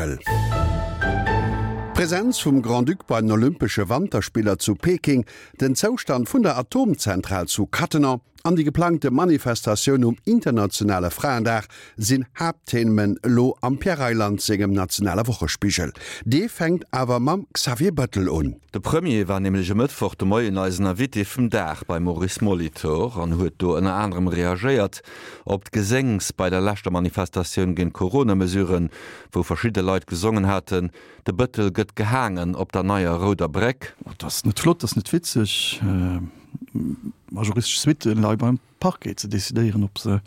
Wochespigel. D'Presenz vum Grand-Duc bei den Olympesche Wanterspiller zu Peking, den Zoustand vun der Atomzentral zu Cattenom an déi geplangte Manifestatioun um internationale Fraendag sinn Haaptthemen elo am Pierre Reyland sengem nationale Wochespigel. Dee fänkt awer mam Xavier Bettel un. De Premier war nämlech e Mëttwoch de Moien eisen Invité vum Dag beim Maurice Molitor an huet do ënner anerem reagéiert op d'Geséngs bei der leschter Manifestatioun géint d'Corona-Mesuren, wou verschidde Leit gesongen haten, De Bëttel gëtt gehaangen op der neier rouder Bréck. Dat ass net flott, dat ass net witzeg. Ma juristesch Suitte leie beim Parquet ze decidéieren, ob se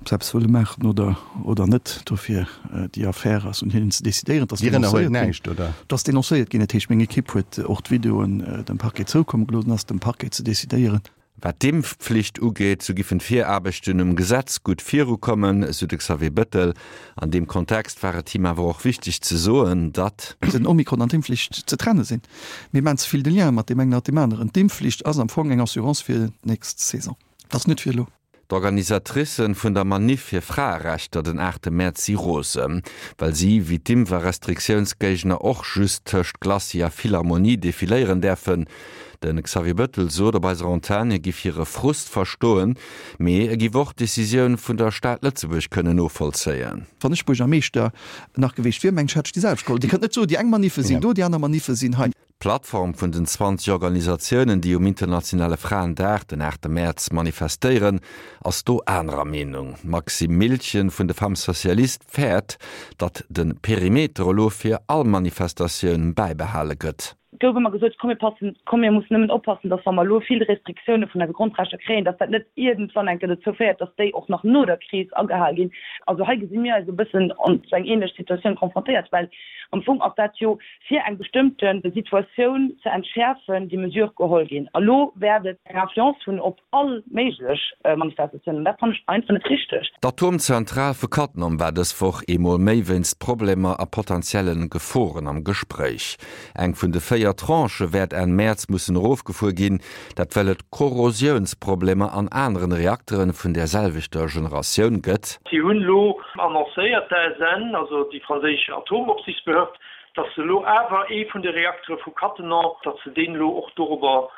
ob se eppes wëlle maachen oder oder net. Dofir déi Affär ass un hinnen ze decidéieren. Et ass Dir ënnerhuelt denoncéiert ginn. näischt, oder? Et ass denoncéiert ginn. Dat heescht, meng Ekipp huet och d'Videoen dem Parquet zoukomme gelooss. Et ass dem Parquet ze decidéieren. Wat d'Impfpflicht ugeet, sou giffen d'Viraarbechten um Gesetz gutt virukommen, sou de Xavier Bettel. An deem Kontext war et him awer och wichteg ze soen, datt. Den Omikron an d'Impfflicht ze trenne sinn. Mir maachen ze vill de Lien mat deem engen a mat deem aneren. D'Impfflicht ass am Fong eng Assurance fir d'nächst Saison. Dat ass net fir elo. D'Organisatricen vun der Maniff fir Fraerechter den 8 Mäerz si rosen, well si, wéi d'Impf a Restriktiounsgéigner, och just tëscht Glacis a Philharmonie defiléieren däerfen. De Xavier Bettel sot op eiser Antenn, hie giff hire Frust verstoen, mee e giff och d'Decisioun vun der Stad Lëtzebuerg kënnen novollzéien. Wann ech Buergermeeschter nach geweecht wier, mengen ech, hätt ech déi selwecht geholl. Dir kënnt net soen, déi eng Maniffe sinn do, déi aner Maniffe sinn hei. D'Plattform vun den 20 Organisatiounen, déi um internationale Fraendag, den 8 Mäerz, manifestéieren, ass do anerer Meenung. D'Maxime Miltgen vun de Femmes Socialistes fäert, datt de Perimeter elo fir all Manifestatioun bäibehale gëtt. Et gouf ëmmer gesot, komm mir passen, komm mir mussen nëmmen oppassen, datt wa mer elo vill Restriktioune vun eise Grondrechter kréien, datt dat net iergendwann eng Kéier dozou féiert, datt déi och nach no der Kris agehal ginn. Also hei gesi mir eis e bëssen an esou eng ähnlech Situatioun confrontéiert, well am Fong ass dat jo fir eng bestëmmte Situatioun ze entschäerfen, déi Mesure geholl ginn. A lo wäert et eng Influence hunn op all méiglech Manifestatiounen. An dat fannen ech einfach net richteg. D'Atomzentral vu Cattenom war dës Woch eemol méi wéinst Problemer a potentielle Geforen am Gespréich. Eng vun de 4 Tranchë wäert Enn Mäerz mussen erofgefuer ginn, dat well et Korrosiounsproblemer an aneren Reakteren vun där selwechter Generatioun gëtt. Si hunn elo annoncéiert, d'ASN, also déi franséisch Atomopsichtsbehörd, datt se elo awer ee vun de Reaktere vu Cattenom, datt se deen elo och dorobber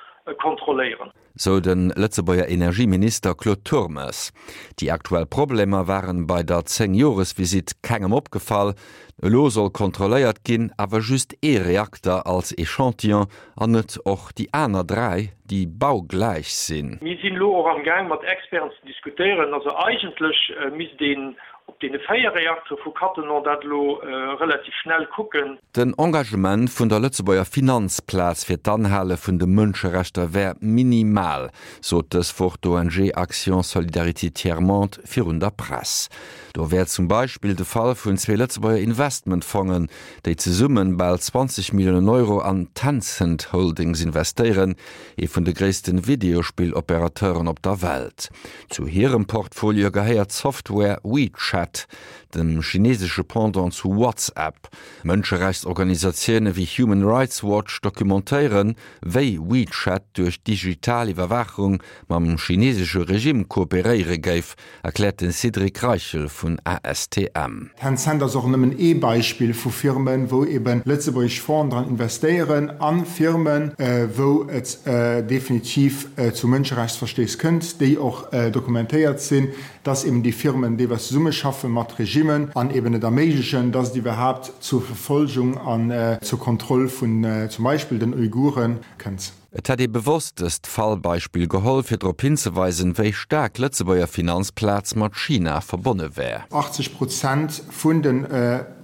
kontrolléieren. Sou de Lëtzebuerger Energieminister Claude Turmes. Déi aktuell Problemer waren bei der 10 Joresvisitt kengem opgefall. Elo soll kontrolléiert ginn, awer just ee Reakter als Echantillon an net och déi aner 3, déi baugläich sinn. Mir sinn elo och am Gaang mat Experten ze diskutéieren. Also eigentlech misst een op deene 4 Reaktere vu Cattenom dat elo relativ schnell kucken. Den Engagement vun der Lëtzebuerger Finanzplaz fir d'Anhale vun de Mënscherechter wär minimal, sot dës Woch d'ONG Action Solidarité Tiers Monde virun der Press. Do wär zum Beispill de Fall vun zwee Lëtzebuerger Investmentfongen, déi zesumme bal 20 Milliounen Euro an Tencent Holdings investéieren, ee vun de gréisste Videospill-Operateuren op der Welt. Zu hirem Portfolio gehéiert d'Software WeChat, dem chinesesche Pendant zu WhatsApp. Mënscherechtsorganisatioune wéi Human Rights Watch documentéieren, wéi WeChat duerch digital Iwwerwaachung mam chinesesche Regime kooperéiere géif, erkläert de Cédric Reichel vun ASTM. Tencent ass och nëmmen ee Beispill vu Firmen, wou eben lëtzebuergesch Fongen dran investéieren a Firmen, wou et definitiv zu Mënscherechtsverstéiss kënnt, déi och dokumentéiert sinn, dass eben déi Firmen deelweis zesummeschaffe mat Regimmen an eben et erméiglechen, dass et iwwerhaapt zur Verfolgung an zur Kontroll vun zum Beispill den Uiguren kënnt. Et hätt ee bewosst dëst Fallbeispill geholl, fir drop hinzeweisen, wéi staark d'Lëtzebuerger Finanzplaz mat China verbonne wär. 80 Prozent vun den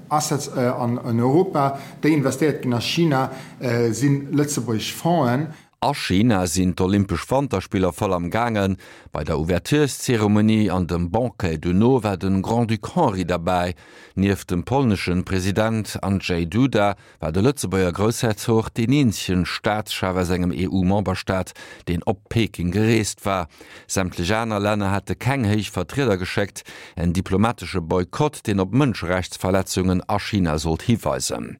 Assets an Europa, déi investéiert ginn a China, si lëtzebuergesch Fongen. A China sinn d'Olympesch Wanterspiller voll am gaangen. Bei der Ouvertureszeremonie an dem Banquet dono war de Grand-Duc Henri derbäi. Nieft dem polneschen President Andrzej Duda war de Lëtzebuerger Groussherzog deen eenzegen Staatschef aus engem EU-Memberstaat, deen op Peking gereest war. Sämtlech aner Länner hätte keng héich Vertrieder geschéckt, en diplomatesche Boykott, deen op Mënscherechtsverletzungen a China sollt hiweisen.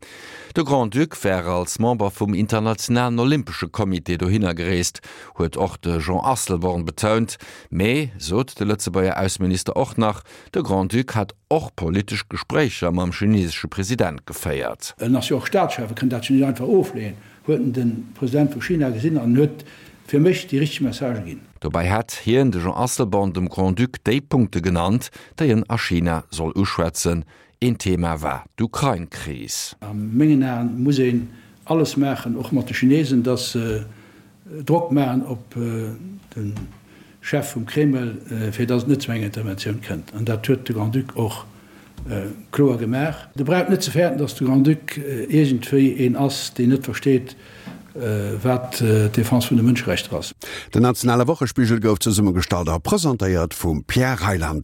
De Grand-Duc war als Member vum Internationalen Olympesche Comité. Invité dohinner gereest, huet och de Jean Asselborn betount. Mee, sot de Lëtzebuerger Ausseminister och nach, de Grand-Duc hätt och politesch Gespréicher mam chinesesche President geféiert. En ass jo och Staatschef, e kënnt dat jo net einfach ofleeën, huet en de President vu China gesinn an en huet fir mech déi richteg Messagë ginn. Dobäi hätt hien, de Jean Asselborn, dem Grand-Duc déi Punkte genannt, déi en a China soll uschwätzen. Een Thema war d'Ukrain-Kris. A mengen Aen muss een alles maachen, och mat de Chinesen, datt se Drock maachen op de Chef vum Kreml, fir datt et net zu enger Interventioun kënnt. An dat huet de Grand-Duc och kloer gemaach. Der braucht net ze fäerten, datt de Grand-Duc iergendwéi een ass, deen net versteet, wat d'Defense vun de Mënscherechter ass. Den nationale Wochespigel gouf zesummegestallt a presentéiert vum Pierre Reyland.